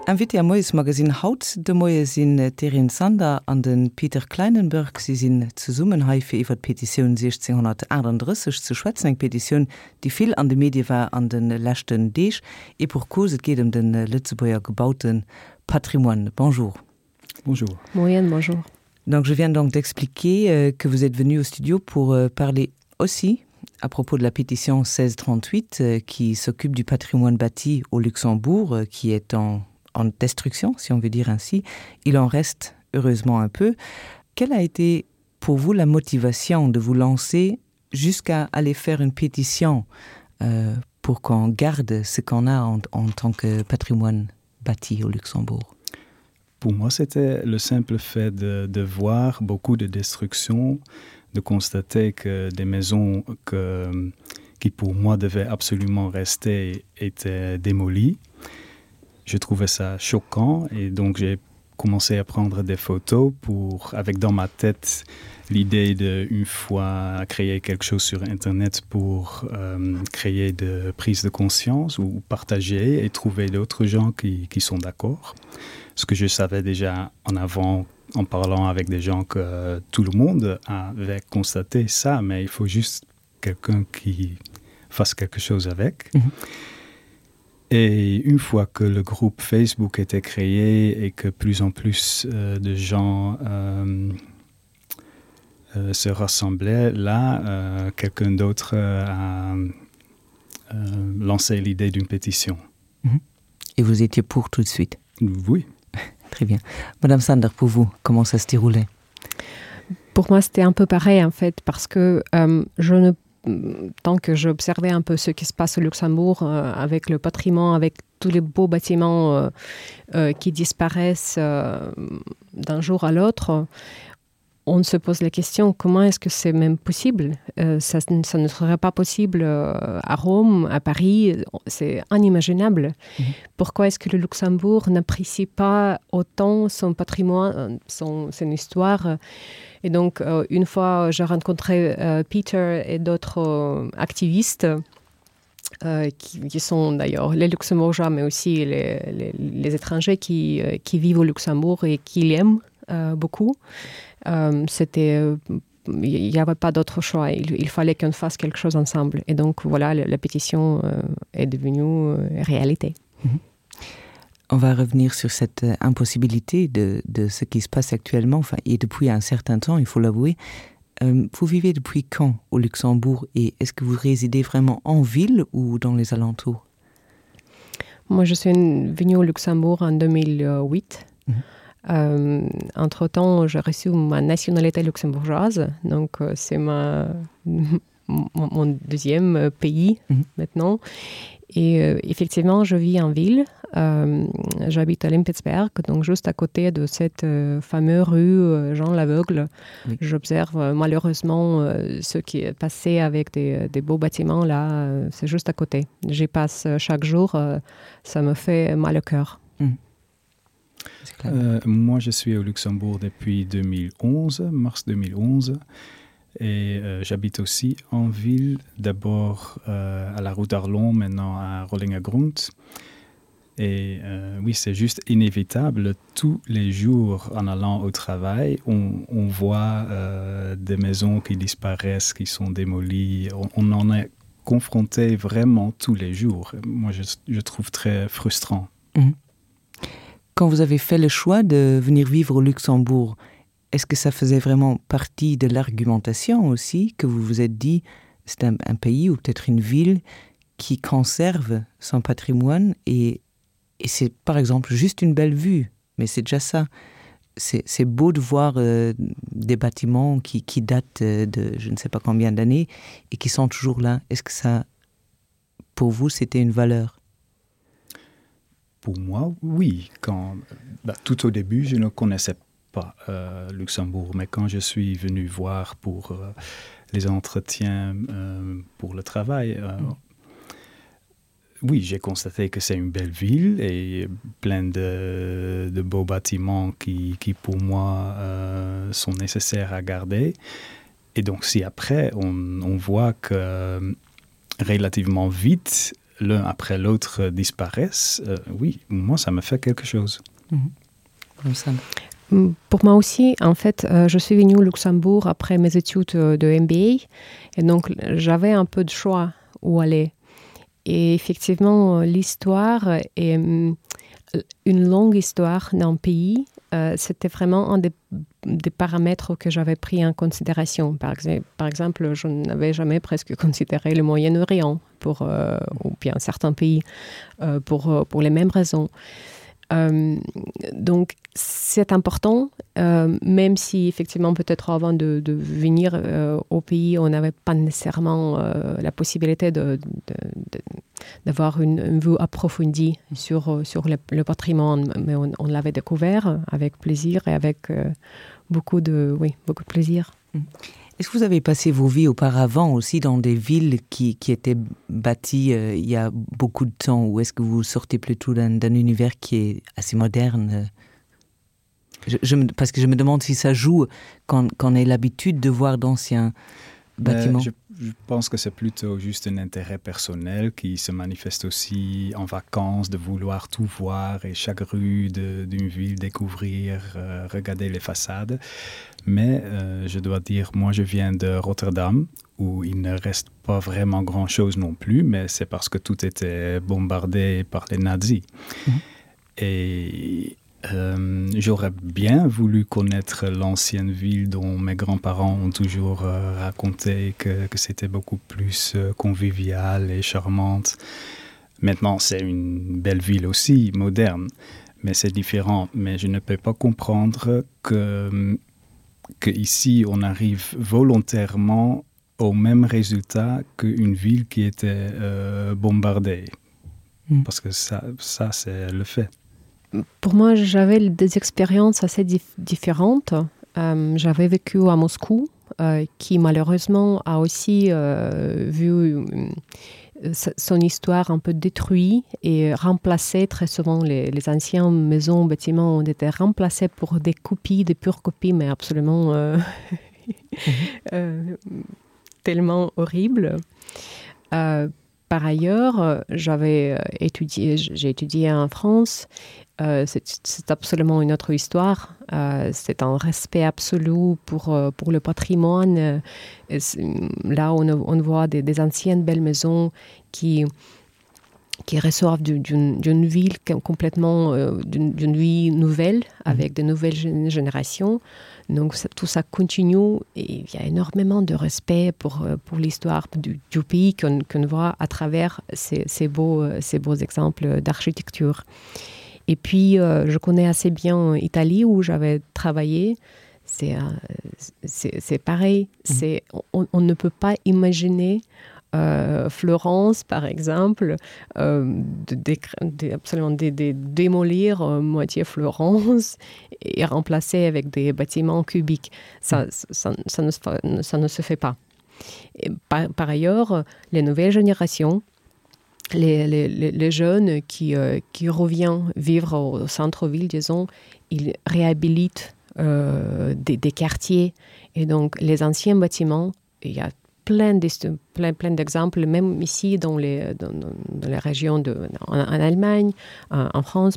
Invité am Moiesmagazine haut de Moie sinn d'Erin Sander an de Peter Kleinenberg. Si sinn zesummen hei fir iwwer d'Petitioun 1638 ze schwätzen. Eng Petitioun, déi vill an de Medie war an de leschten Deeg. Et pour cause, et geet ëm de Lëtzebuerger gebaute Patrimoine. Bonjour. Bonjour. Moien, bonjour. Donc je viens donc d'expliquer euh, que vous êtes venu au studio pour euh, parler aussi à propos de la pétition 1638 euh, qui s'occupe du patrimoine bâti au Luxembourg qui est en, en destruction si on veut dire ainsi il en reste heureusement un peu quelle a été pour vous la motivation de vous lancer jusqu'à aller faire une pétition euh, pour qu'on garde ce qu'on a en, en tant que patrimoine bâti au Luxembourg Pour moi, c'était le simple fait de, de voir beaucoup de destruction, de constater que des maisons que, qui pour moi devaient absolument rester étaient démolies. Je trouvais ça choquant et donc j'ai commencé à prendre des photos pour avec dans ma tête l'idée de une fois créer quelque chose sur internet pour euh, créer de prise de conscience ou partager et trouver d'autres gens qui, qui sont d'accord. Ce que je savais déjà en avant en parlant avec des gens que tout le monde avait constaté ça, mais il faut juste quelqu'un qui fasse quelque chose avec. Mm -hmm. Et une fois que le groupe Facebook était créé et que plus en plus euh, de gens euh, euh, se rassemblaient, là, euh, quelqu'un d'autre euh, a euh, lancé l'idée d'une pétition. Mhm. Et vous étiez pour tout de suite Oui. Très bien. Madame Sander, pour vous, comment ça se déroulait Pour moi, c'était un peu pareil en fait, parce que euh, je ne tant que j'observais un peu ce qui se passe au Luxembourg euh, avec le patrimoine, avec tous les beaux bâtiments euh, euh, qui disparaissent euh, d'un jour à l'autre, on se pose la question comment est-ce que c'est même possible euh, ça, ça ne serait pas possible euh, à Rome, à Paris, c'est inimaginable. Mmh. Pourquoi est-ce que le Luxembourg n'apprécie pas autant son patrimoine, son, son histoire Et donc euh, une fois j'ai rencontré euh, Peter et d'autres euh, activistes, euh, qui, qui sont d'ailleurs les luxembourgeois mais aussi les, les, les étrangers qui, euh, qui vivent au Luxembourg et qui l'aiment euh, beaucoup. Euh, c'était euh, il n'y avait pas d'autre choix il, il fallait qu'on fasse quelque chose ensemble et donc voilà la, la pétition euh, est devenue euh, réalité. Mm -hmm. On va revenir sur cette euh, impossibilité de, de ce qui se passe actuellement enfin, et depuis un certain temps, il faut l'avouer. Euh, vous vivez depuis quand au Luxembourg et est-ce que vous résidez vraiment en ville ou dans les alentours? Moi je suis venue au Luxembourg en 2008. Mmh. Euh, entre temps, j'ai reçu ma nationalité luxembourgeoise, donc euh, c'est ma mon, mon deuxième euh, pays mmh. maintenant. Et euh, effectivement, je vis en ville. Euh, J'habite à Limpetsberg, donc juste à côté de cette euh, fameuse rue euh, Jean l'aveugle. Oui. J'observe euh, malheureusement euh, ce qui est passé avec des, euh, des beaux bâtiments là, euh, c'est juste à côté. J'y passe euh, chaque jour, euh, ça me fait mal au cœur. Mmh. Euh, moi, je suis au Luxembourg depuis 2011, mars 2011 et euh, j'habite aussi en ville, d'abord euh, à la route d'Arlon, maintenant à Rollingergrund. Et euh, oui, c'est juste inévitable. Tous les jours en allant au travail, on, on voit euh, des maisons qui disparaissent, qui sont démolies. On, on en est confronté vraiment tous les jours. Moi, je, je trouve très frustrant. Mmh. Quand vous avez fait le choix de venir vivre au Luxembourg, est-ce que ça faisait vraiment partie de l'argumentation aussi que vous vous êtes dit c'est un, un pays ou peut-être une ville qui conserve son patrimoine et, et c'est par exemple juste une belle vue, mais c'est déjà ça. C'est beau de voir euh, des bâtiments qui, qui datent euh, de je ne sais pas combien d'années et qui sont toujours là. Est-ce que ça, pour vous, c'était une valeur? Pour moi, oui. Quand, bah, tout au début, je ne connaissais pas euh, Luxembourg, mais quand je suis venu voir pour euh, les entretiens euh, pour le travail, euh, mm. oui, j'ai constaté que c'est une belle ville et plein de, de beaux bâtiments qui, qui pour moi euh, sont nécessaires à garder. Et donc si après on, on voit que relativement vite, l'un après l'autre disparaissent, euh, oui, moi ça me fait quelque chose. Mmh. Mm, pour moi aussi, en fait, euh, je suis venue au Luxembourg après mes études euh, de MBA et donc j'avais un peu de choix où aller. Et effectivement, euh, l'histoire est mm, une longue histoire d'un pays. Euh, C'était vraiment un des, des paramètres que j'avais pris en considération. Par, par exemple, je n'avais jamais presque considéré le Moyen-Orient pour euh, ou bien certains pays euh, pour, euh, pour les mêmes raisons. Euh, donc c'est important, euh, même si effectivement peut-être avant de, de venir euh, au pays, on n'avait pas nécessairement euh, la possibilité d'avoir une, une vue approfondie sur, euh, sur le, le patrimoine, mais on, on l'avait découvert avec plaisir et avec euh, beaucoup de, oui, beaucoup de plaisir. Mmh. Est-ce que vous avez passé vos vies auparavant aussi dans des villes qui, qui étaient bâties euh, il y a beaucoup de temps ou est-ce que vous sortez plutôt d'un univers qui est assez moderne je, je me, parce que je me demande si ça joue quand, quand on ait l'habitude de voir d'anciens bâtiments. Je, je pense que c'est plutôt juste un intérêt personnel qui se manifeste aussi en vacances, de vouloir tout voir et chaque rue d'une ville découvrir, euh, regarder les façades. Mais euh, je dois dire, moi je viens de Rotterdam où il ne reste pas vraiment grand chose non plus, mais c'est parce que tout était bombardé par les nazis. Mmh. Et euh, j'aurais bien voulu connaître l'ancienne ville dont mes grands-parents ont toujours euh, raconté que, que c'était beaucoup plus euh, convivial et charmante. Maintenant, c'est une belle ville aussi, moderne, mais c'est différent. Mais je ne peux pas comprendre que, que ici on arrive volontairement au même résultat qu'une ville qui était euh, bombardée. Mmh. Parce que ça, ça c'est le fait. Pour moi, j'avais des expériences assez dif différentes. Euh, j'avais vécu à Moscou, euh, qui malheureusement a aussi euh, vu euh, son histoire un peu détruite et remplacée très souvent les, les anciennes maisons bâtiments ont été remplacés pour des copies des pures copies mais absolument euh, euh, tellement horrible euh, par ailleurs j'avais euh, étudié j'ai étudié en France euh, c'est absolument une autre histoire euh, c'est un respect absolu pour euh, pour le patrimoine euh, là on, on voit des, des anciennes belles maisons qui qui reçoivent d'une ville complètement euh, d'une vie nouvelle mmh. avec de nouvelles générations donc ça, tout ça continue et il y a énormément de respect pour euh, pour l'histoire du, du pays qu'on qu voit à travers ces, ces beaux euh, ces beaux exemples d'architecture et puis euh, je connais assez bien Italie où j'avais travaillé c'est euh, c'est pareil mmh. c'est on, on ne peut pas imaginer euh, Florence par exemple euh, de, de, de, absolument de, de démolir euh, moitié Florence et remplacer avec des bâtiments cubiques ça, ça, ça, ne, ça ne se fait pas et par, par ailleurs les nouvelles générations les, les, les jeunes qui, euh, qui revient vivre au centre-ville disons ils réhabilitent euh, des, des quartiers et donc les anciens bâtiments il y a plein de plein plein d'exemples même ici dans les dans, dans les régions de en, en Allemagne en, en France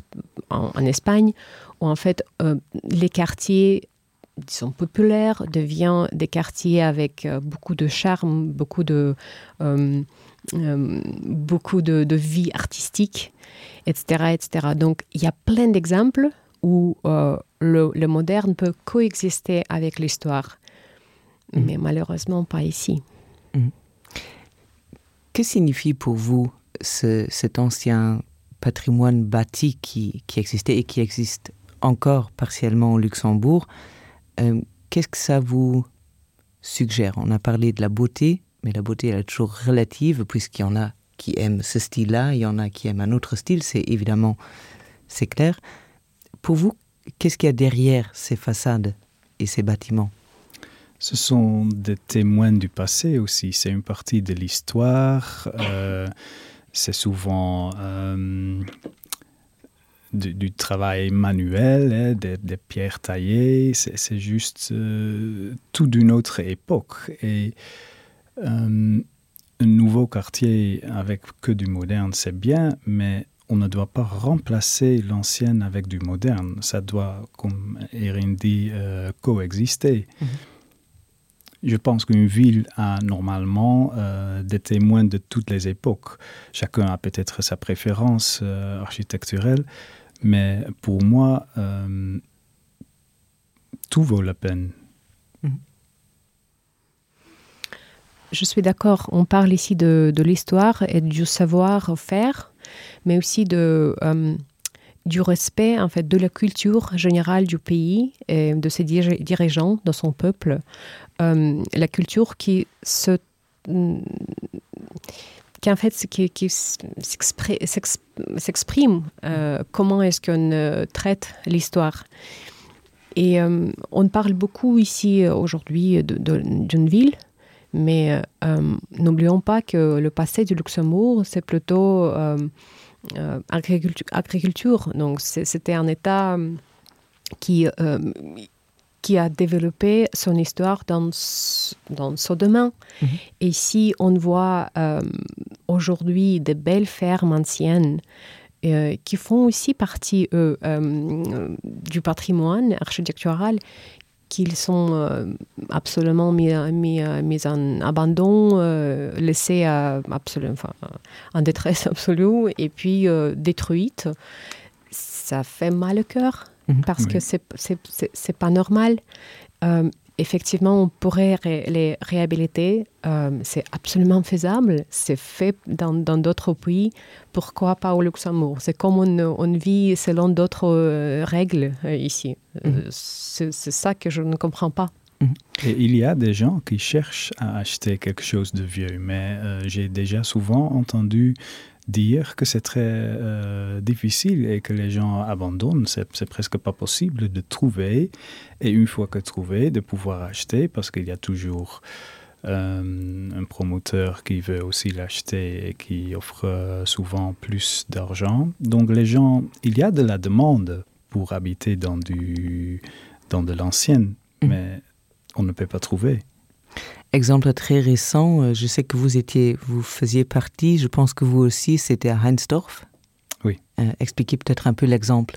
en, en Espagne où en fait euh, les quartiers disons populaires devient des quartiers avec euh, beaucoup de charme beaucoup de euh, euh, beaucoup de, de vie artistique etc etc donc il y a plein d'exemples où euh, le, le moderne peut coexister avec l'histoire mmh. mais malheureusement pas ici. Mmh. Que signifie pour vous ce, cet ancien patrimoine bâti qui, qui existait et qui existe encore partiellement au Luxembourg euh, Qu'est-ce que ça vous suggère On a parlé de la beauté, mais la beauté elle est toujours relative puisqu'il y en a qui aiment ce style-là, il y en a qui aiment un autre style, c'est évidemment c'est clair. Pour vous, qu'est-ce qu'il y a derrière ces façades et ces bâtiments Ce sont des témoins du passé aussi, c'est une partie de l'histoire, euh, c'est souvent euh, du, du travail manuel, hein, des, des pierres taillées, c'est juste euh, tout d'une autre époque. Et euh, Un nouveau quartier avec que du moderne, c'est bien, mais on ne doit pas remplacer l'ancienne avec du moderne. Ça doit, comme Erin dit, euh, coexister. Mm -hmm. Je pense qu'une ville a normalement euh, des témoins de toutes les époques. Chacun a peut-être sa préférence euh, architecturelle, mais pour moi, euh, tout vaut la peine. Mm. Je suis d'accord, on parle ici de, de l'histoire et du savoir-faire, mais aussi de, euh, du respect en fait, de la culture générale du pays et de ses dirigeants, de son peuple. Euh, la culture qui se qui en fait qui, qui s'exprime euh, comment est-ce qu'on euh, traite l'histoire. Et euh, on parle beaucoup ici euh, aujourd'hui d'une ville, mais euh, n'oublions pas que le passé du Luxembourg, c'est plutôt euh, euh, agriculture, agriculture. Donc c'était un état euh, qui, euh, qui a développé son histoire dans, dans son domaine. Mm -hmm. Et si on voit euh, aujourd'hui des belles fermes anciennes, euh, qui font aussi partie eux, euh, du patrimoine architectural, qu'ils sont euh, absolument mis, mis, mis en abandon, euh, laissés à, absolu, enfin, en détresse absolue et puis euh, détruites, ça fait mal au cœur mmh. parce oui. que c'est pas normal. Euh, effectivement, on pourrait ré les réhabiliter, euh, c'est absolument faisable, c'est fait dans d'autres pays, pourquoi pas au Luxembourg C'est comme on, on vit selon d'autres euh, règles euh, ici. Mmh. Euh, c'est ça que je ne comprends pas. Mhm. Et il y a des gens qui cherchent à acheter quelque chose de vieux, mais euh, j'ai déjà souvent entendu dire que c'est très euh, difficile et que les gens abandonnent. C'est presque pas possible de trouver et une fois que trouvé, de pouvoir acheter parce qu'il y a toujours euh, un promoteur qui veut aussi l'acheter et qui offre euh, souvent plus d'argent. Donc les gens, il y a de la demande pour habiter dans, du, dans de l'ancienne, mmh. mais on ne peut pas trouver. Exemple très récent, euh, je sais que vous étiez vous faisiez partie, je pense que vous aussi c'était à Heinsdorf. Oui. Euh, expliquez peut-être un peu l'exemple.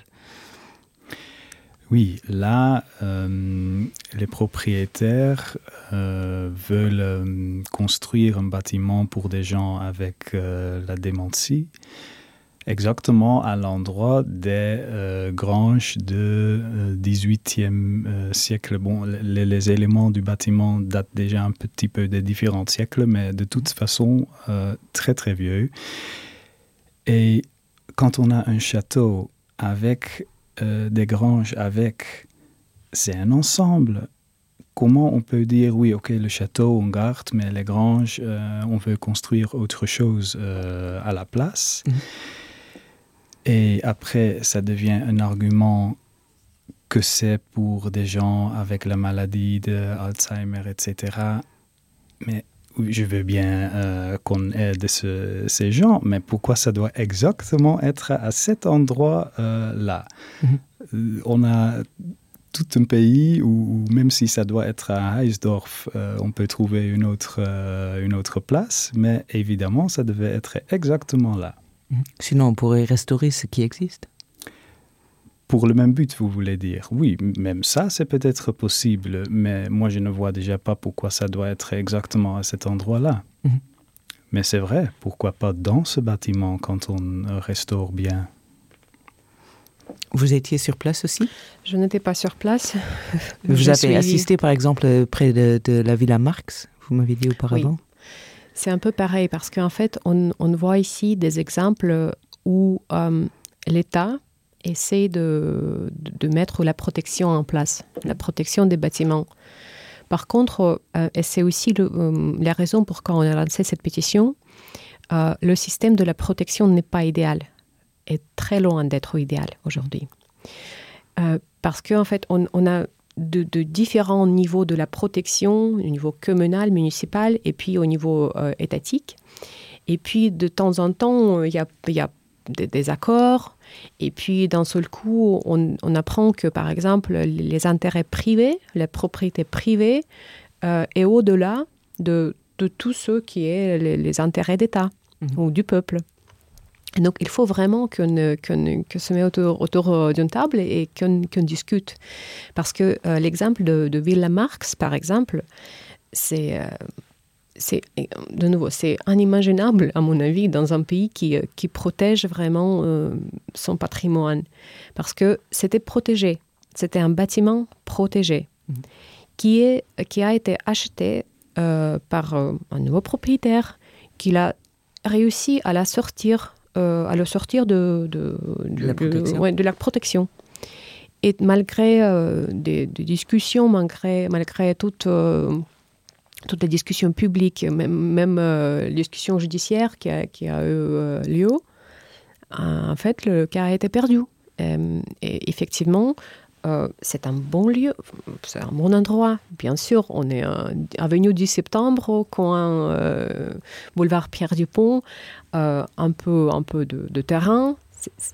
Oui, là euh, les propriétaires euh, veulent euh, construire un bâtiment pour des gens avec euh, la démentie exactement à l'endroit des euh, granges de euh, 18e euh, siècle. Bon, les, les éléments du bâtiment datent déjà un petit peu des différents siècles, mais de toute façon euh, très très vieux. Et quand on a un château avec euh, des granges avec, c'est un ensemble. Comment on peut dire oui, ok, le château on garde, mais les granges, euh, on veut construire autre chose euh, à la place. Mmh. Et après, ça devient un argument que c'est pour des gens avec la maladie d'Alzheimer, etc. Mais je veux bien euh, qu'on aide ce, ces gens, mais pourquoi ça doit exactement être à cet endroit euh, là mm -hmm. Euh, on a tout un pays où, où même si ça doit être à Heisdorf, euh, on peut trouver une autre, euh, une autre place, mais évidemment, ça devait être exactement là. Mhm. Sinon, on pourrait restaurer ce qui existe. Pour le même but, vous voulez dire. Oui, même ça, c'est peut-être possible, mais moi, je ne vois déjà pas pourquoi ça doit être exactement à cet endroit-là. Mm -hmm. Mais c'est vrai, pourquoi pas dans ce bâtiment quand on restaure bien Vous étiez sur place aussi Je n'étais pas sur place. Vous je avez suis... assisté, par exemple, près de, de la Villa Marx, vous m'avez dit auparavant. Oui. C'est un peu pareil parce qu'en fait, on, on voit ici des exemples où euh, l'État essaie de, de mettre la protection en place, la protection des bâtiments. Par contre, euh, et c'est aussi le, euh, la raison pourquoi on a lancé cette pétition, euh, le système de la protection n'est pas idéal, est très loin d'être idéal aujourd'hui. Euh, parce qu'en en fait, on, on a de, de différents niveaux de la protection, au niveau communal, municipal et puis au niveau euh, étatique. Et puis de temps en temps, il y a, y a des, des accords. Et puis d'un seul coup, on, on apprend que par exemple les intérêts privés, la propriété privée euh, est au-delà de de tout ce qui est les, les intérêts d'État mmh. ou du peuple. Et donc il faut vraiment qu'on qu qu se met autour, autour euh, d'une table et qu'on qu discute. Parce que euh, l'exemple de, de Villa Marx, par exemple, c'est euh, c'est de nouveau c'est inimaginable à mon avis dans un pays qui, euh, qui protège vraiment euh, son patrimoine parce que c'était protégé c'était un bâtiment protégé mmh. qui est qui a été acheté euh, par euh, un nouveau propriétaire qu'il a réussi à la sortir euh, à le sortir de, de, de, la, protection. De, ouais, de la protection et malgré euh, des, des discussions malgré malgré toute euh, toutes les discussions publiques, même, même euh, discussions judiciaires qui a, qui a eu euh, lieu, euh, en fait, le cas a été perdu. Euh, et effectivement, euh, c'est un bon lieu, c'est un bon endroit, bien sûr. On est euh, avenue du septembre, au coin euh, boulevard Pierre Dupont, euh, un peu, un peu de, de terrain.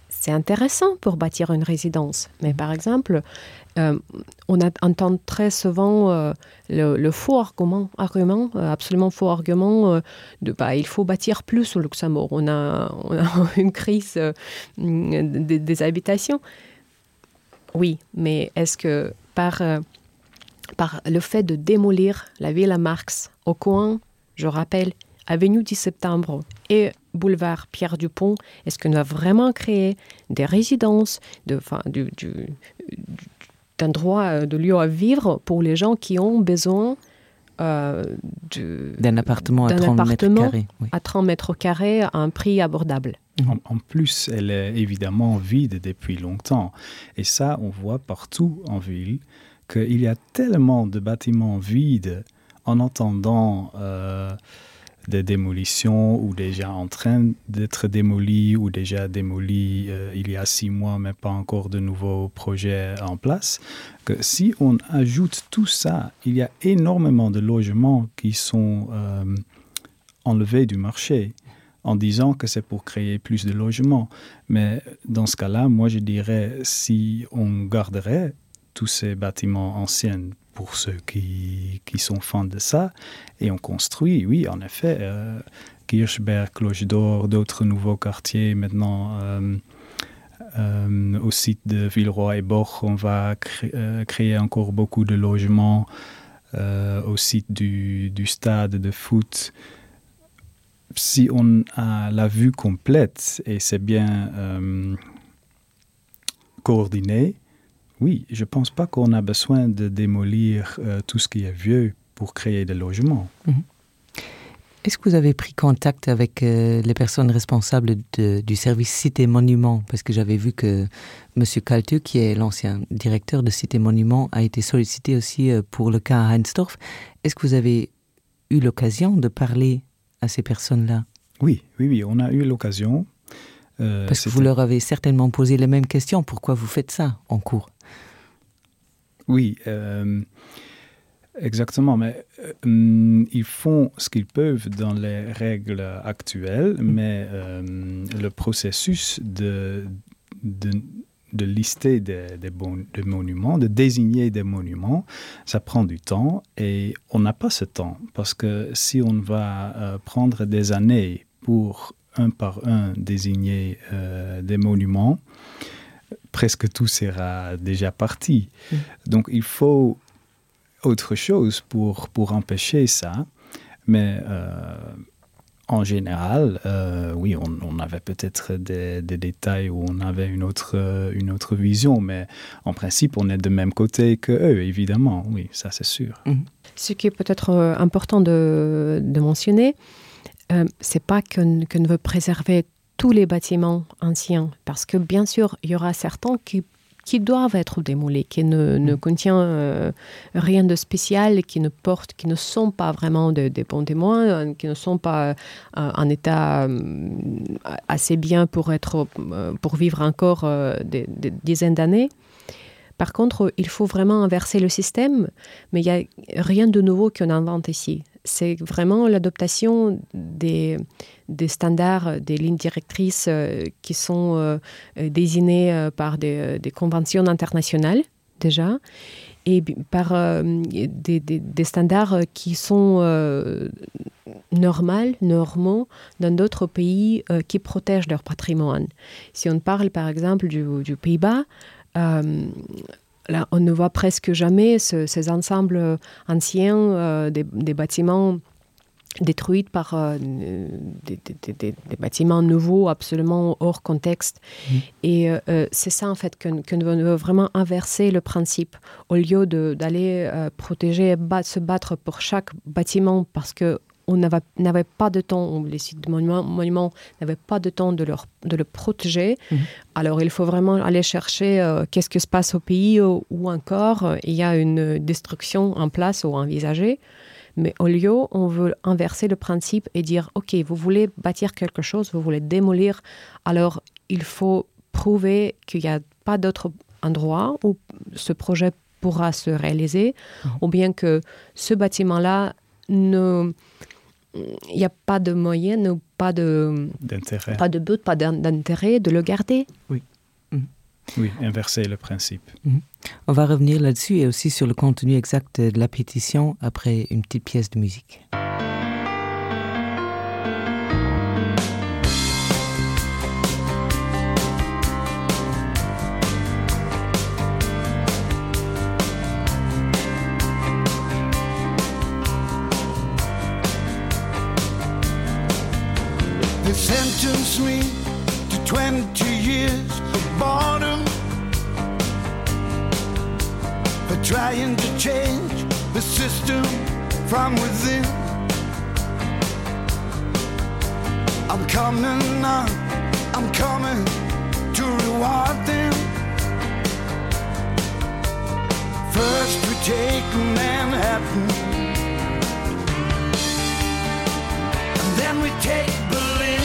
C'est intéressant pour bâtir une résidence. Mais par exemple, euh, on a, entend très souvent euh, le, le faux argument, argument euh, absolument faux argument euh, de bah, il faut bâtir plus au Luxembourg. On a, on a une crise euh, des, des habitations. Oui, mais est-ce que par, euh, par le fait de démolir la ville à Marx au coin, je rappelle, avenue 10 septembre et boulevard Pierre Dupont, est-ce qu'on a vraiment créé des résidences de, enfin, du, du, d'un droit euh, de lieu à vivre pour les gens qui ont besoin euh, d'un appartement à 30 mètres carrés, oui. à 30 mètres carrés à un prix abordable. En, en plus, elle est évidemment vide depuis longtemps. Et ça, on voit partout en ville qu'il y a tellement de bâtiments vides en attendant euh, des démolitions ou déjà en train d'être démolies ou déjà démolies euh, il y a six mois mais pas encore de nouveaux projets en place que si on ajoute tout ça il y a énormément de logements qui sont euh, enlevés du marché en disant que c'est pour créer plus de logements mais dans ce cas là moi je dirais si on garderait tous ces bâtiments anciens pour ceux qui, qui sont fans de ça et on construit oui en effet euh, Kirchberg cloche d'or d'autres nouveaux quartiers maintenant euh, euh, au site de Villeroy et Bord on va cré euh, créer encore beaucoup de logements euh, au site du, du stade de foot si on a la vue complète et c'est bien euh, coordonné oui je pense pas qu'on a besoin de démolir euh, tout ce qui est vieux pour créer des logements mm -hmm. Est-ce que vous avez pris contact avec euh, les personnes responsables de, du service Cité Monument parce que j'avais vu que monsieur Calteux qui est l'ancien directeur de Cité Monument a été sollicité aussi euh, pour le cas à Heinsdorf. Est-ce que vous avez eu l'occasion de parler à ces personnes-là Oui, oui, oui, on a eu l'occasion. Euh, parce que vous leur avez certainement posé les mêmes questions pourquoi vous faites ça en cours Oui, euh, exactement mais euh, ils font ce qu'ils peuvent dans les règles actuelles mm. mais euh, le processus de, de de lister des, des, bon, des monuments, de désigner des monuments, ça prend du temps et on n'a pas ce temps parce que si on va euh, prendre des années pour un par un désigner euh, des monuments, presque tout sera déjà parti. Mmh. Donc il faut autre chose pour, pour empêcher ça, mais euh, en général, euh, oui, on, on avait peut-être des, des détails où on avait une autre, euh, une autre vision, mais en principe, on est de même côté que eux, évidemment, oui, ça c'est sûr. Mmh. Ce qui est peut-être euh, important de, de mentionner, euh, c'est pas qu'on qu ne veut préserver tous les bâtiments anciens, parce que bien sûr, il y aura certains qui qui doivent être démolis, qui ne, ne mm. contient euh, rien de spécial, qui ne portent, qui ne sont pas vraiment de, des bons témoins, euh, qui ne sont pas euh, en état euh, assez bien pour être euh, pour vivre encore euh, des, des dizaines d'années. Par contre, il faut vraiment inverser le système, mais il n'y a rien de nouveau qu'on invente ici. C'est vraiment l'adoption des, des standards, des lignes directrices euh, qui sont euh, désignées euh, par des, des conventions internationales déjà. et par euh, des, des, des standards qui sont euh, normaux, normaux dans d'autres pays euh, qui protègent leur patrimoine. Si on parle par exemple du, du Pays-Bas, euh, là, on ne voit presque jamais ce, ces ensembles anciens euh, des, des bâtiments détruites par euh, des, des, des, des bâtiments nouveaux absolument hors contexte mmh. et euh, euh c'est ça en fait que, que nous veut vraiment inverser le principe au lieu d'aller euh, protéger bat, se battre pour chaque bâtiment parce que on n'avait pas de temps les sites de monuments monument n'avaient pas de temps de leur de le protéger mmh. alors il faut vraiment aller chercher euh, qu'est ce que se passe au pays ou, ou encore euh, il y a une destruction en place ou envisagée mais au lieu on veut inverser le principe et dire ok vous voulez bâtir quelque chose vous voulez démolir alors il faut prouver qu'il n'y a pas d'autre endroit où ce projet pourra se réaliser mmh. ou bien que ce bâtiment là ne il n'y a pas de moyen ou pas de d'intérêt pas de but pas d'intérêt de le garder oui mmh. oui inverser le principe mmh. on va revenir là dessus et aussi sur le contenu exact de la pétition après une petite pièce de musique They sentenced me to 20 years of boredom For trying to change the system from within I'm coming now, I'm coming to reward them First we take Manhattan And then we take Berlin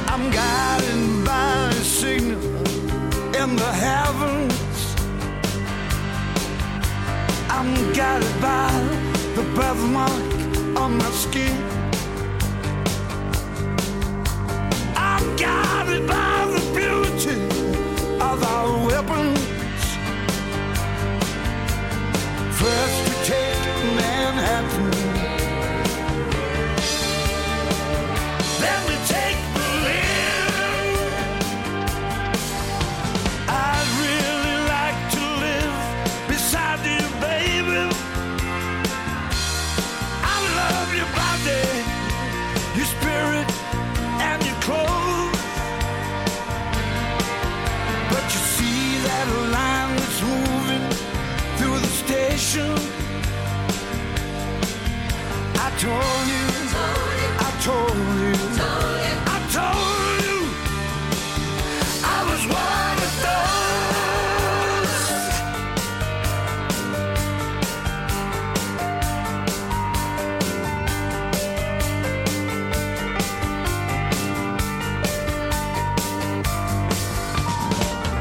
I'm guided by a signal in the heavens I'm guided by the birthmark on my skin I'm guided by the beauty of our weapons First we take Manhattan Then we take Berlin I'd really like to live beside you, baby I love your body, your spirit and your clothes But you see that line that's moving through the station I told you, I told you, I told you I was one of those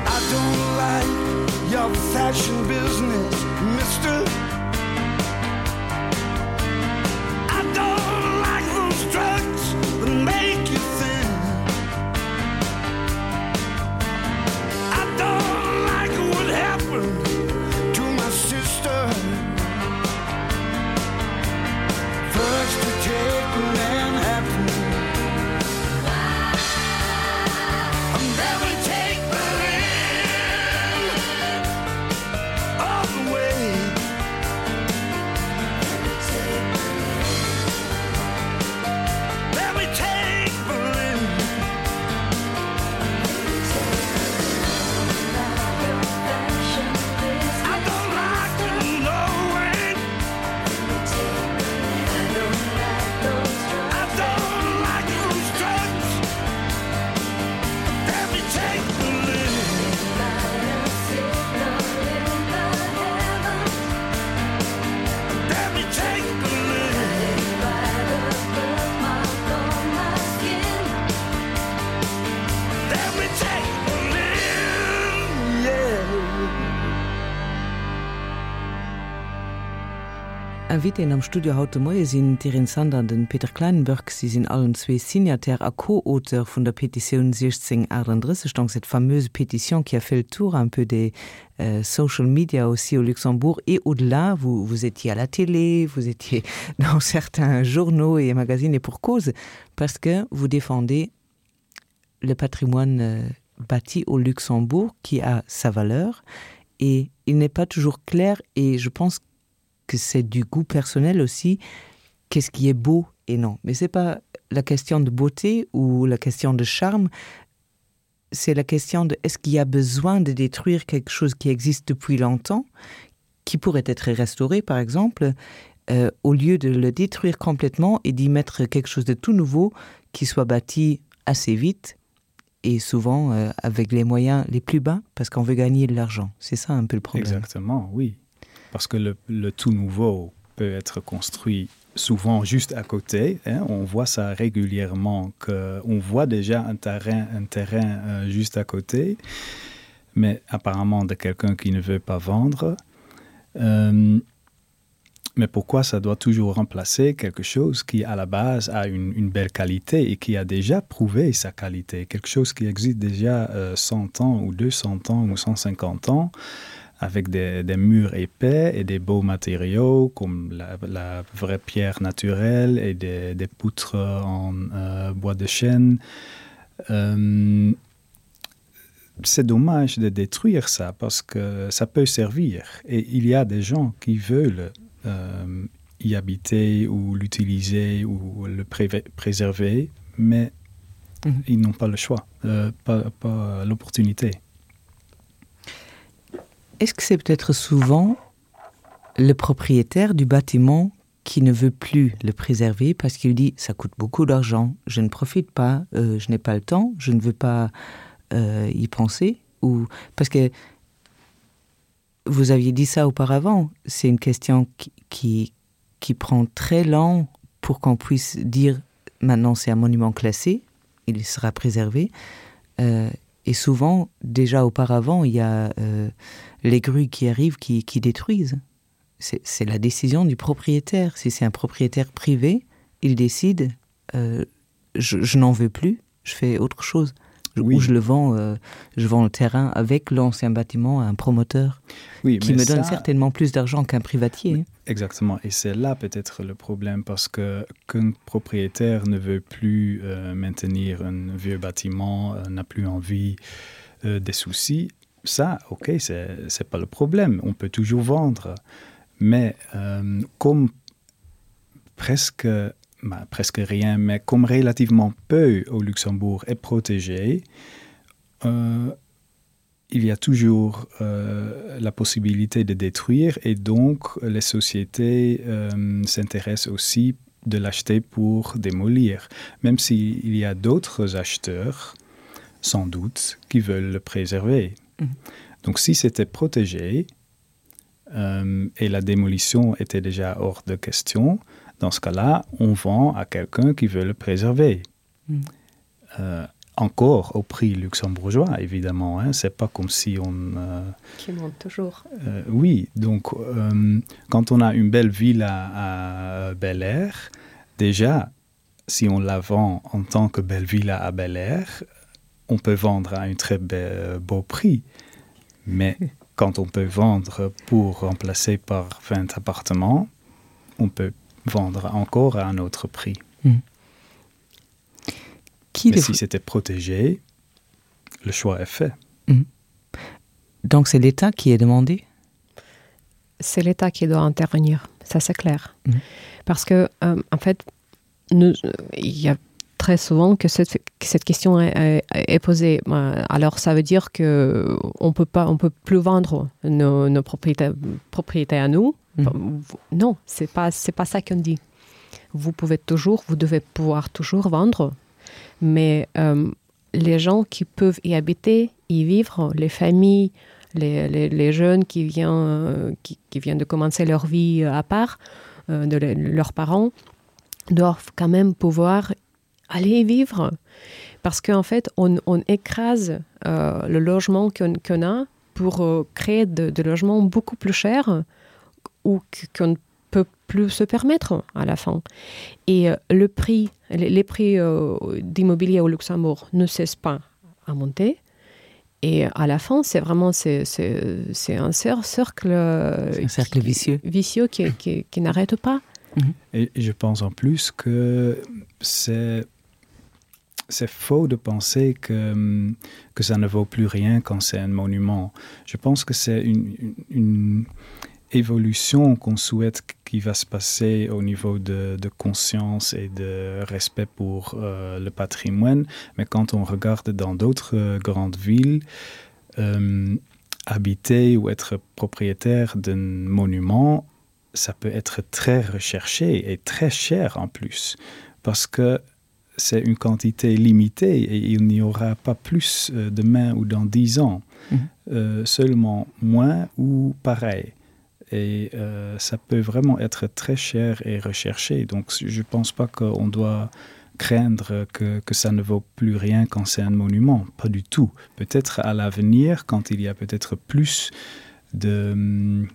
I don't like your fashion business, mister I don't like those drugs, the Invitéen am Studio haut de Moie sinn d'Irene Sander an den Peter Kleinenberg. Si sinn allen zwee Signataire a Co-Auteur vun der Petitioun 1638, donc cette fameuse pétition qui a fait le tour un peu des social media aussi au Luxembourg et au-delà. Vous, vous étiez à la télé, vous étiez dans certains journaux et magazines et pour cause, parce que vous défendez le patrimoine euh, bâti au Luxembourg qui a sa valeur et il n'est pas toujours clair et je pense que c'est du goût personnel aussi qu'est-ce qui est beau et non mais c'est pas la question de beauté ou la question de charme c'est la question de est-ce qu'il y a besoin de détruire quelque chose qui existe depuis longtemps qui pourrait être restauré par exemple euh, au lieu de le détruire complètement et d'y mettre quelque chose de tout nouveau qui soit bâti assez vite et souvent euh, avec les moyens les plus bas parce qu'on veut gagner de l'argent c'est ça un peu le problème exactement oui parce que le, le tout nouveau peut être construit souvent juste à côté hein, on voit ça régulièrement que on voit déjà un terrain un terrain euh, juste à côté mais apparemment de quelqu'un qui ne veut pas vendre euh, mais pourquoi ça doit toujours remplacer quelque chose qui à la base a une, une belle qualité et qui a déjà prouvé sa qualité quelque chose qui existe déjà euh, 100 ans ou 200 ans ou 150 ans avec des, des murs épais et des beaux matériaux comme la, la vraie pierre naturelle et des, des poutres en euh, bois de chêne euh, c'est dommage de détruire ça parce que ça peut servir et il y a des gens qui veulent euh, y habiter ou l'utiliser ou le pré préserver mais mm -hmm. ils n'ont pas le choix euh, pas, pas l'opportunité est-ce que c'est peut-être souvent le propriétaire du bâtiment qui ne veut plus le préserver parce qu'il dit ça coûte beaucoup d'argent je ne profite pas euh, je n'ai pas le temps je ne veux pas euh, y penser ou parce que vous aviez dit ça auparavant c'est une question qui, qui qui prend très lent pour qu'on puisse dire maintenant c'est un monument classé il sera préservé euh, et souvent déjà auparavant il y a euh, les grues qui arrivent qui, qui détruisent c'est la décision du propriétaire si c'est un propriétaire privé il décide euh, je, je n'en veux plus je fais autre chose oui. où je le vends euh, je vends le terrain avec l'ancien bâtiment à un promoteur oui, qui me donne ça... certainement plus d'argent qu'un privatier oui, exactement et c'est là peut-être le problème parce que qu'un propriétaire ne veut plus euh, maintenir un vieux bâtiment euh, n'a plus envie euh, des soucis ça ok c'est pas le problème on peut toujours vendre mais euh, comme presque bah, presque rien mais comme relativement peu au luxembourg est protégé euh, il y a toujours euh, la possibilité de détruire et donc les sociétés euh, s'intéressent aussi de l'acheter pour démolir même s'il y a d'autres acheteurs sans doute qui veulent le préserver mmh. donc si c'était protégé euh, et la démolition était déjà hors de question dans ce cas là on vend à quelqu'un qui veut le préserver mmh. euh, encore au prix luxembourgeois évidemment hein c'est pas comme si on euh, qui monte toujours euh, oui donc euh, quand on a une belle ville à, à bel air déjà si on la vend en tant que belle villa à bel air on peut vendre à un très be beau prix mais quand on peut vendre pour remplacer par 20 appartements on peut vendre encore à un autre prix mmh. Qui Mais si c'était protégé, le choix est fait. Mmh. Donc c'est l'État qui est demandé C'est l'État qui doit intervenir, ça c'est clair. Mmh. Parce que euh, en fait nous, il y a très souvent que cette, que cette question est, est, est posée. Alors ça veut dire que on peut pas on peut plus vendre nos, nos propriétés, propriétés à nous. Mmh. Non, c'est pas c'est pas ça qu'on dit. Vous pouvez toujours, vous devez pouvoir toujours vendre, mais euh, les gens qui peuvent y habiter, y vivre, les familles, les, les, les jeunes qui viennent, euh, qui, qui viennent de commencer leur vie à part euh, de le, leurs parents, doivent quand même pouvoir aller y vivre. Parce qu'en fait, on, on écrase euh, le logement qu'on qu a pour euh, créer de, de logements beaucoup plus chers ou qu'on ne peut plus se permettre à la fin. Et euh, le prix, les, les prix euh, d'immobilier au Luxembourg ne cessent pas à monter. Et à la fin, c'est vraiment c'est un cercle, un cercle vicieux, vicieux qui, qui, qui n'arrête pas. Mm -hmm. Et je pense en plus que c'est c'est faux de penser que, que ça ne vaut plus rien quand c'est un monument. Je pense que c'est une, une, une évolution qu'on souhaite qui va se passer au niveau de, de conscience et de respect pour euh, le patrimoine. Mais quand on regarde dans d'autres euh, grandes villes, euh, habiter ou être propriétaire d'un monument, ça peut être très recherché et très cher en plus parce que c'est une quantité limitée et il n'y aura pas plus euh, demain ou dans dix ans mmh. euh, seulement moins ou pareil et euh, ça peut vraiment être très cher et recherché donc je pense pas qu'on doit craindre que, que ça ne vaut plus rien quand c'est un monument pas du tout peut-être à l'avenir quand il y a peut-être plus de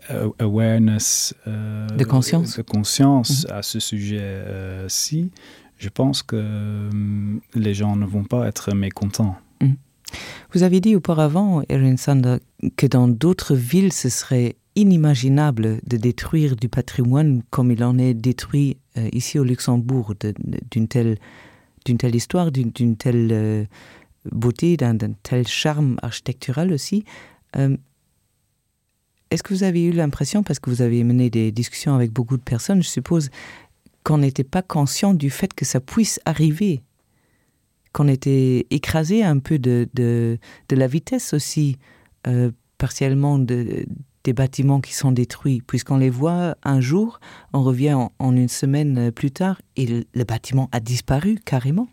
euh, awareness euh, de conscience de conscience mm -hmm. à ce sujet euh, ci je pense que euh, les gens ne vont pas être mécontents. Mm. Vous avez dit auparavant, Erin Sander, que dans d'autres villes, ce serait inimaginable de détruire du patrimoine comme il en est détruit euh, ici au Luxembourg d'une telle, telle histoire, d'une telle euh, beauté, d'un tel charme architectural aussi. Euh, Est-ce que vous avez eu l'impression, parce que vous avez mené des discussions avec beaucoup de personnes, je suppose, qu'on n'était pas conscient du fait que ça puisse arriver, qu'on était écrasé un peu de, de, de la vitesse aussi euh, partiellement de, des bâtiments qui sont détruits, puisqu'on les voit un jour, on revient en, en une semaine plus tard et le, le bâtiment a disparu carrément.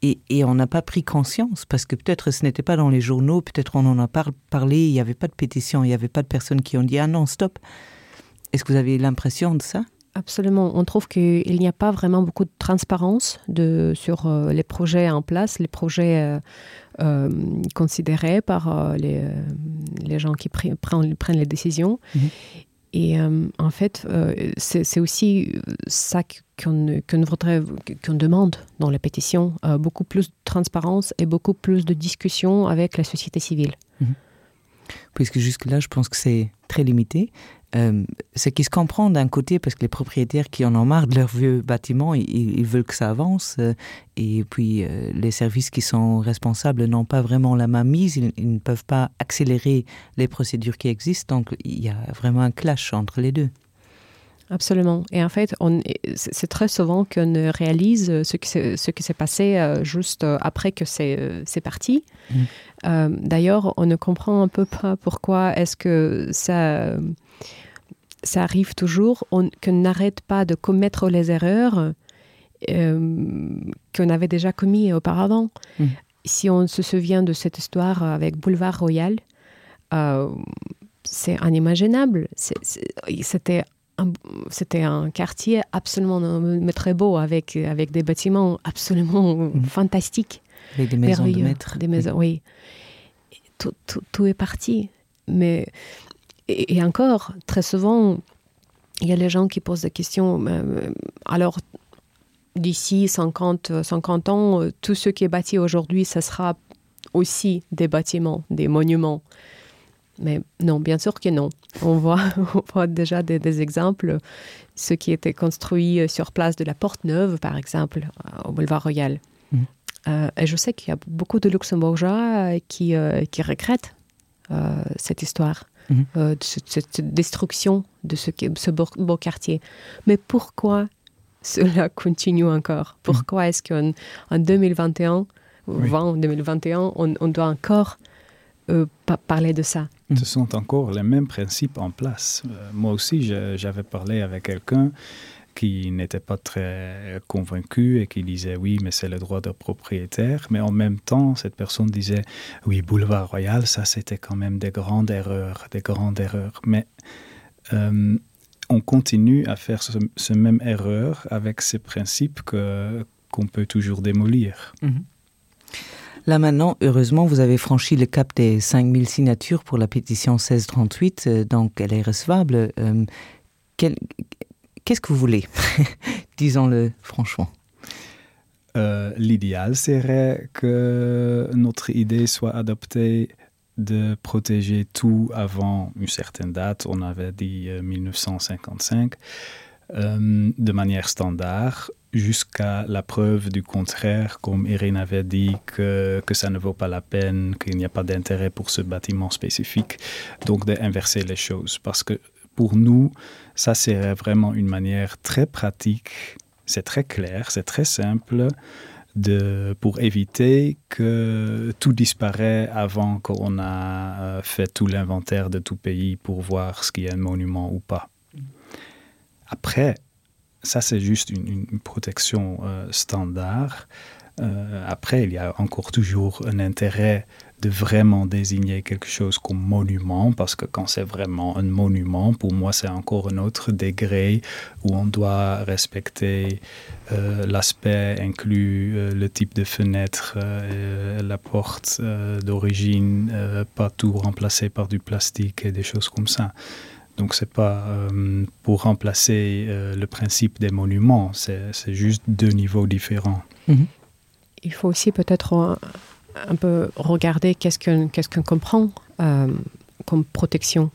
Et, et on n'a pas pris conscience parce que peut-être ce n'était pas dans les journaux, peut-être on en a par parlé, il n'y avait pas de pétition, il n'y avait pas de personnes qui ont dit ah non stop. Est-ce que vous avez l'impression de ça? Absolument. On trouve qu'il n'y a pas vraiment beaucoup de transparence de, sur euh, les projets en place, les projets euh, euh, considérés par euh, les, euh, les gens qui prennent, prennent les décisions. Mmh. Et euh, en fait, euh, c'est aussi ça qu'on qu voudrait qu'on demande dans la pétition, euh, beaucoup plus de transparence et beaucoup plus de discussions avec la société civile. Mmh. Puisque jusque-là, je pense que c'est très limité. Euh, ce qui se comprend d'un côté parce que les propriétaires qui en ont marre de leur vieux bâtiment ils, ils veulent que ça avance euh, et puis euh, les services qui sont responsables n'ont pas vraiment la main mise ils, ils ne peuvent pas accélérer les procédures qui existent donc il y a vraiment un clash entre les deux. Absolument. Et en fait, c'est très souvent qu'on réalise ce qui ce qui s'est passé euh, juste euh, après que c'est euh, parti. Mmh. Euh, D'ailleurs, on ne comprend un peu pas pourquoi est-ce que ça, ça arrive toujours, qu'on n'arrête pas de commettre les erreurs euh, qu'on avait déjà commis auparavant. Mmh. Si on se souvient de cette histoire avec Boulevard Royal, euh, c'est inimaginable. C'était c'était un quartier absolument mais très beau avec, avec des bâtiments absolument mmh. fantastiques. Avec des maisons de maître. Des maisons, oui. oui. Tout, tout, tout est parti. Mais, et, et encore, très souvent, il y a les gens qui posent des questions. Euh, alors, d'ici 50, 50 ans, tout ce qui est bâti aujourd'hui, ça sera aussi des bâtiments, des monuments. Mais non, bien sûr que non. On voit, on voit déjà des, des exemples, ce qui était construit sur place de la Porte Neuve, par exemple, euh, au boulevard Royal. Mmh. Euh, et je sais qu'il y a beaucoup de Luxembourgeois euh, qui, euh, qui regrettent euh, cette histoire, mmh. euh, de cette, cette destruction de ce, ce beau, beau quartier. Mais pourquoi cela continue encore mmh. Pourquoi mmh. est-ce qu'en en 2021, oui. 20, 2021, on, on doit encore euh, parler de ça. Ce sont encore les mêmes principes en place. Euh, moi aussi, j'avais parlé avec quelqu'un qui n'était pas très convaincu et qui disait oui, mais c'est le droit de propriétaire. Mais en même temps, cette personne disait oui, boulevard royal, ça c'était quand même des grandes erreurs, des grandes erreurs. Mais euh, on continue à faire ce, ce même erreur avec ces principes que qu'on peut toujours démolir. Mm -hmm. Là maintenant, heureusement, vous avez franchi le cap des 5000 signatures pour la pétition 1638, euh, donc elle est recevable. Euh, Qu'est-ce que vous voulez Disons-le franchement. Euh, L'idéal serait que notre idée soit adoptée de protéger tout avant une certaine date, on avait dit 1955, euh, euh, de manière standard jusqu'à la preuve du contraire, comme Irene avait dit que, que ça ne vaut pas la peine, qu'il n'y a pas d'intérêt pour ce bâtiment spécifique, donc d'inverser les choses. Parce que pour nous, ça serait vraiment une manière très pratique, c'est très clair, c'est très simple de, pour éviter que tout disparaît avant qu'on a euh, fait tout l'inventaire de tout pays pour voir ce qui est un monument ou pas. Après, ça c'est juste une, une protection euh, standard. Euh, après, il y a encore toujours un intérêt de vraiment désigner quelque chose comme monument parce que quand c'est vraiment un monument, pour moi c'est encore un autre degré où on doit respecter euh, l'aspect inclus euh, le type de fenêtre, euh, la porte euh, d'origine, euh, pas tout remplacé par du plastique et des choses comme ça. Donc c'est pas euh, pour remplacer euh, le principe des monuments, c'est juste deux niveaux différents. Mm -hmm. Il faut aussi peut-être euh, un peu regarder qu'est-ce qu'on qu qu comprend euh, comme protection.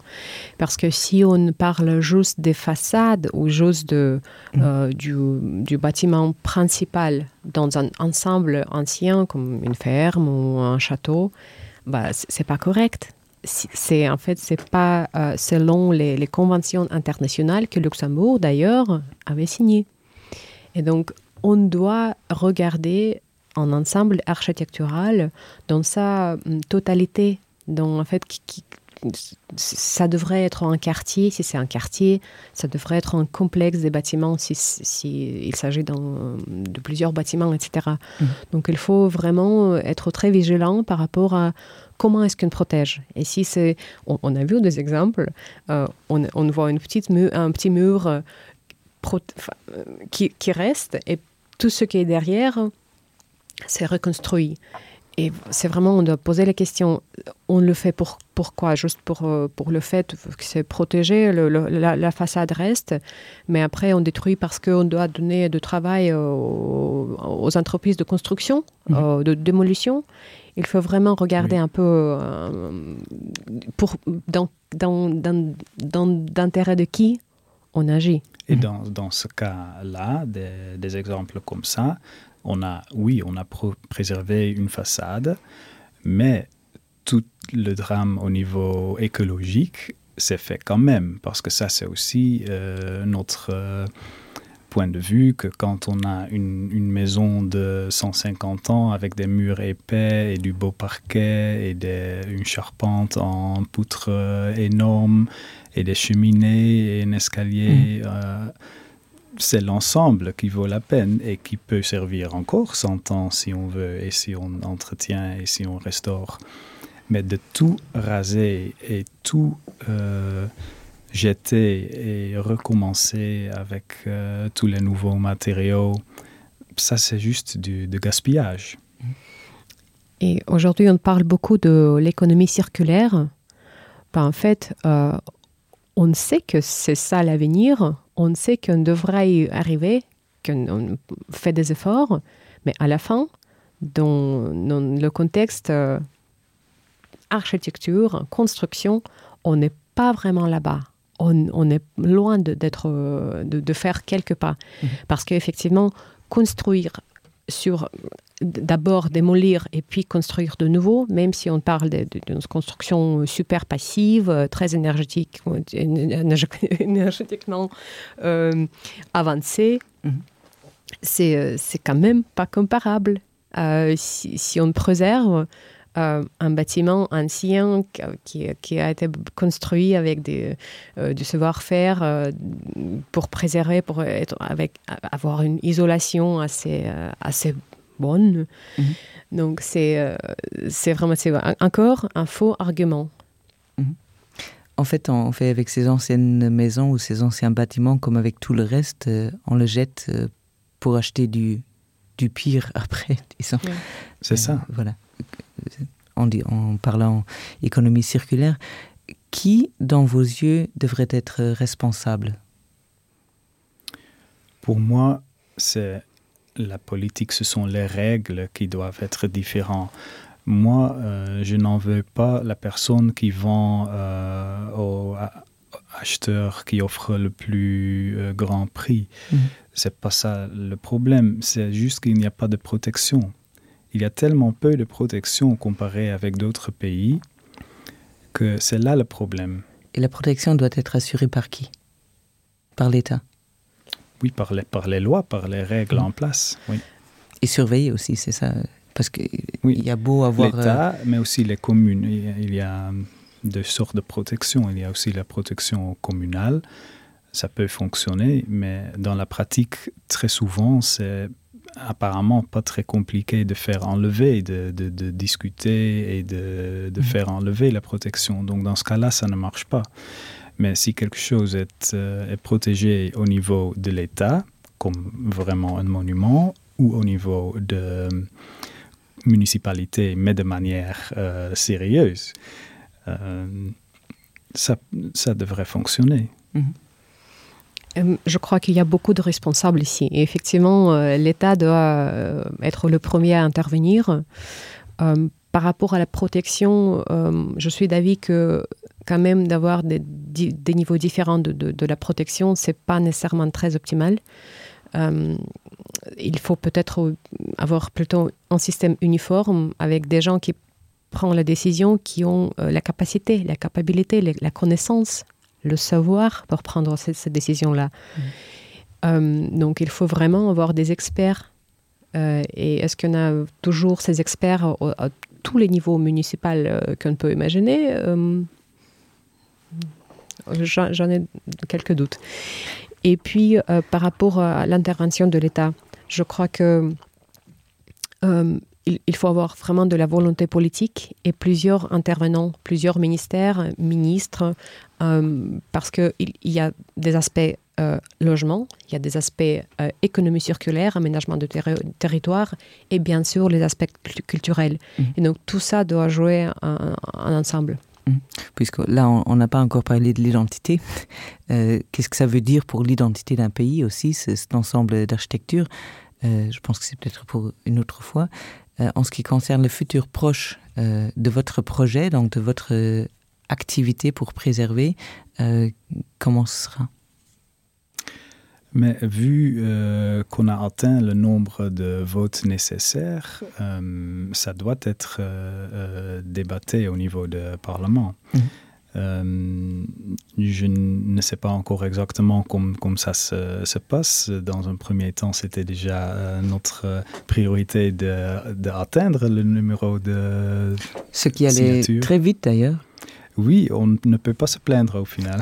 Parce que si on parle juste des façades ou juste de, mmh. euh, du, du bâtiment principal dans un ensemble ancien comme une ferme ou un château, c'est pas correct. C'est en fait c'est pas euh, selon les, les conventions internationales que Luxembourg d'ailleurs avait signé. Et donc on doit regarder en ensemble architectural dans sa mm, totalité dont en fait qui, qui, ça devrait être un quartier si c'est un quartier ça devrait être un complexe des bâtiments si, si il s'agit de plusieurs bâtiments etc mmh. donc il faut vraiment être très vigilant par rapport à comment est-ce qu'on protège et si c'est on, on a vu des exemples euh, on, on voit une petite mu un petit mur euh, euh, qui, qui reste et tout ce qui est derrière c'est reconstruit. Et c'est vraiment on doit poser la question on le fait pour pourquoi juste pour, euh, pour le fait que c'est protégé le, le, la, la façade reste mais après on détruit parce qu'on doit donner de travail aux, aux entreprises de construction mmh. euh, de démolition il faut vraiment regarder oui. un peu euh, pour dans dans dans dans d'intérêt de qui on agit et dans, dans ce cas là des, des exemples comme ça on a oui on a préservé une façade mais tout le drame au niveau écologique s'est fait quand même parce que ça c'est aussi euh, notre euh, point de vue que quand on a une, une maison de 150 ans avec des murs épais et du beau parquet et des, une charpente en poutre euh, énorme et des cheminées et un escalier mmh. euh, c'est l'ensemble qui vaut la peine et qui peut servir encore 100 ans si on veut et si on entretient et si on restaure. Mais de tout raser et tout euh, jeter et recommencer avec euh, tous les nouveaux matériaux, ça c'est juste du de gaspillage. Et aujourd'hui, on parle beaucoup de l'économie circulaire. Ben, en fait, euh, on sait que c'est ça l'avenir, on sait qu'on devrait y arriver, qu'on fait des efforts, mais à la fin, dans, dans le contexte euh, architecture, construction, on n'est pas vraiment là-bas. On, on est loin d'être de, de, de faire quelques pas. Mmh. Parce qu'effectivement, construire sur d'abord démolir et puis construire de nouveau, même si on parle d'une construction super passive, très énergétique énergétiquement euh, avancée, mm -hmm. c'est quand même pas comparable. Euh, si, si on préserve euh, un bâtiment ancien qui, qui a été construit avec des, euh, du savoir-faire euh, pour préserver, pour être avec avoir une isolation assez, euh, assez bonne. Mm -hmm. Donc c'est euh, c'est vraiment encore un faux argument. Mm -hmm. En fait, on fait avec ces anciennes maisons ou ces anciens bâtiments comme avec tout le reste, euh, on le jette euh, pour acheter du, du pire après disons. Oui. C'est ça. Euh, voilà. En, dit, en parlant économie circulaire, qui dans vos yeux devrait être responsable? Pour moi, c'est la politique, ce sont les règles qui doivent être différentes. Moi, euh, je n'en veux pas la personne qui vend euh, au acheteur qui offre le plus euh, grand prix. Mmh. C'est pas ça le problème, c'est juste qu'il n'y a pas de protection. Il y a tellement peu de protection comparé avec d'autres pays que c'est là le problème. Et la protection doit être assurée par qui? Par l'État? Oui, par les, par les lois, par les règles mmh. en place. Oui. Et surveiller aussi, c'est ça parce qu'il oui. y a beau avoir l'État, euh... mais aussi les communes. Il y a deux sortes de protection. Il y a aussi la protection communale. Ça peut fonctionner, mais dans la pratique, très souvent, c'est apparemment pas très compliqué de faire enlever, de, de, de discuter et de, de mmh. faire enlever la protection. Donc dans ce cas-là, ça ne marche pas. Mais si quelque chose est, euh, est protégé au niveau de l'État, comme vraiment un monument, ou au niveau de municipalité, mais de manière euh, sérieuse, euh, ça, ça devrait fonctionner. Mmh. Je crois qu'il y a beaucoup de responsables ici. Et effectivement, euh, l'État doit euh, être le premier à intervenir. Euh, par rapport à la protection, je suis d'avis que quand même d'avoir des, des niveaux différents de, de, de la protection, ce n'est pas nécessairement très optimal. Euh, il faut peut-être avoir plutôt un système uniforme avec des gens qui prennent la décision, qui ont euh, la capacité, la capacité, la connaissance, le savoir pour prendre cette, cette décision-là. Mmh. Euh, donc il faut vraiment avoir des experts. Euh, et est-ce qu'on a toujours ces experts au, à tous les niveaux municipaux euh, qu'on peut imaginer euh, J'en ai quelques doutes. Et puis euh, par rapport à l'intervention de l'État, je crois que euh, il, il faut avoir vraiment de la volonté politique et plusieurs intervenants, plusieurs ministères, ministres, euh, parce qu'il il y a des aspects euh, logement, il y a des aspects euh, économie circulaire, aménagement de terri territoire et bien sûr les aspects culturels. Mmh. Et donc tout ça doit jouer un, un ensemble. Mmh. Puisque là on n'a pas encore parlé de l'identité, euh, qu'est-ce que ça veut dire pour l'identité d'un pays aussi, cet ensemble d'architecture euh, Je pense que c'est peut-être pour une autre fois. Euh, en ce qui concerne le futur proche euh, de votre projet, donc de votre euh, activité pour préserver, euh, comment ce sera? Mais vu euh, qu'on a atteint le nombre de votes nécessaires, euh, ça doit être euh, euh, débatté au niveau du Parlement. Mmh. Euh, je ne sais pas encore exactement comme, comme ça se, se passe. Dans un premier temps, c'était déjà euh, notre priorité d'atteindre le numéro de Ce qui allait signature. très vite d'ailleurs. Oui, on ne peut pas se plaindre au final.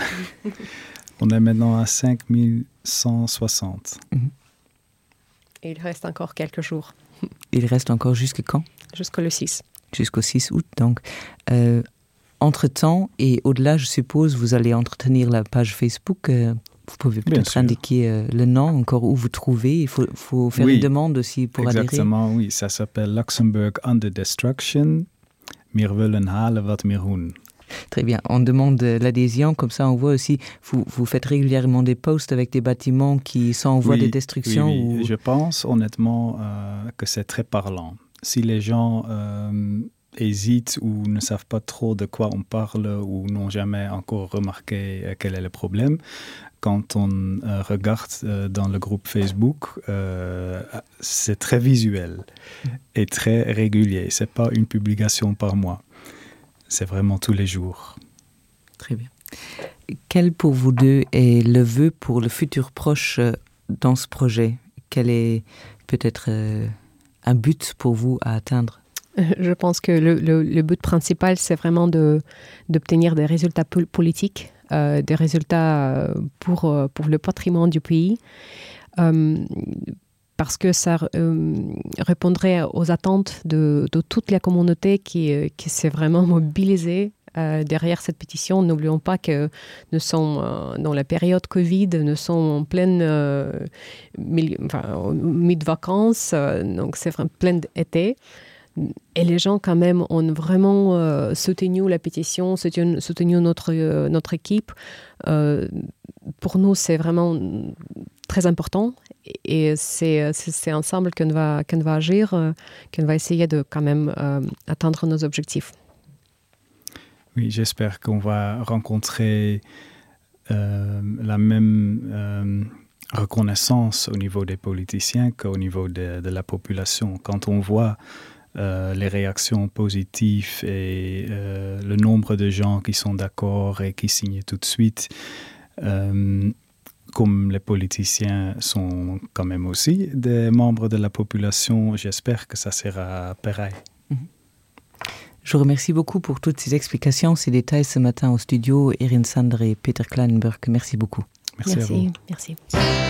on est maintenant à 5160. Mmh. Et il reste encore quelques jours. Il reste encore jusque quand Jusqu'au 6. Jusqu'au 6 août donc. Euh, entre-temps et au-delà, je suppose, vous allez entretenir la page Facebook. Euh, vous pouvez peut-être indiquer euh, le nom encore où vous trouvez. Il faut, faut faire oui, une demande aussi pour exactement, adhérer. oui, ça s'appelle Luxembourg Under Destruction. Mir willen halen wat mir hun. Très bien. On demande l'adhésion, comme ça on voit aussi, vous, vous faites régulièrement des posts avec des bâtiments qui sont en voie oui, de destruction oui, oui. Ou... Je pense honnêtement euh, que c'est très parlant. Si les gens euh, hésitent ou ne savent pas trop de quoi on parle ou n'ont jamais encore remarqué euh, quel est le problème, quand on euh, regarde euh, dans le groupe Facebook, euh, c'est très visuel et très régulier. C'est pas une publication par mois c'est vraiment tous les jours. Très bien. Quel pour vous deux est le vœu pour le futur proche euh, dans ce projet? Quel est peut-être euh, un but pour vous à atteindre? Je pense que le, le, le but principal, c'est vraiment d'obtenir de, des résultats politiques, euh, des résultats euh, pour, pour le patrimoine du pays. Euh, parce que ça euh, répondrait aux attentes de, de toute la communauté qui, euh, qui s'est vraiment mobilisée euh, derrière cette pétition. N'oublions pas que nous sommes euh, dans la période Covid, nous sommes en pleine euh, milieu, enfin, mid-vacances, euh, donc c'est plein d'été. Et les gens quand même ont vraiment euh, soutenu la pétition, soutenu, soutenu notre, euh, notre équipe. Euh, pour nous, c'est vraiment très important. Et c'est ensemble qu'on va, qu'on va agir, euh, qu'on va essayer de quand même euh, atteindre nos objectifs. Oui, j'espère qu'on va rencontrer euh, la même euh, reconnaissance au niveau des politiciens qu'au niveau de, de la population. Quand on voit euh, les réactions positives et euh, le nombre de gens qui sont d'accord et qui signent tout de suite, euh, comme les politiciens sont quand même aussi des membres de la population, j'espère que ça sera pareil. Mm -hmm. Je vous remercie beaucoup pour toutes ces explications, ces détails ce matin au studio Erin Sander et Peter Kleinenberg. Merci beaucoup. Merci. Merci. Merci.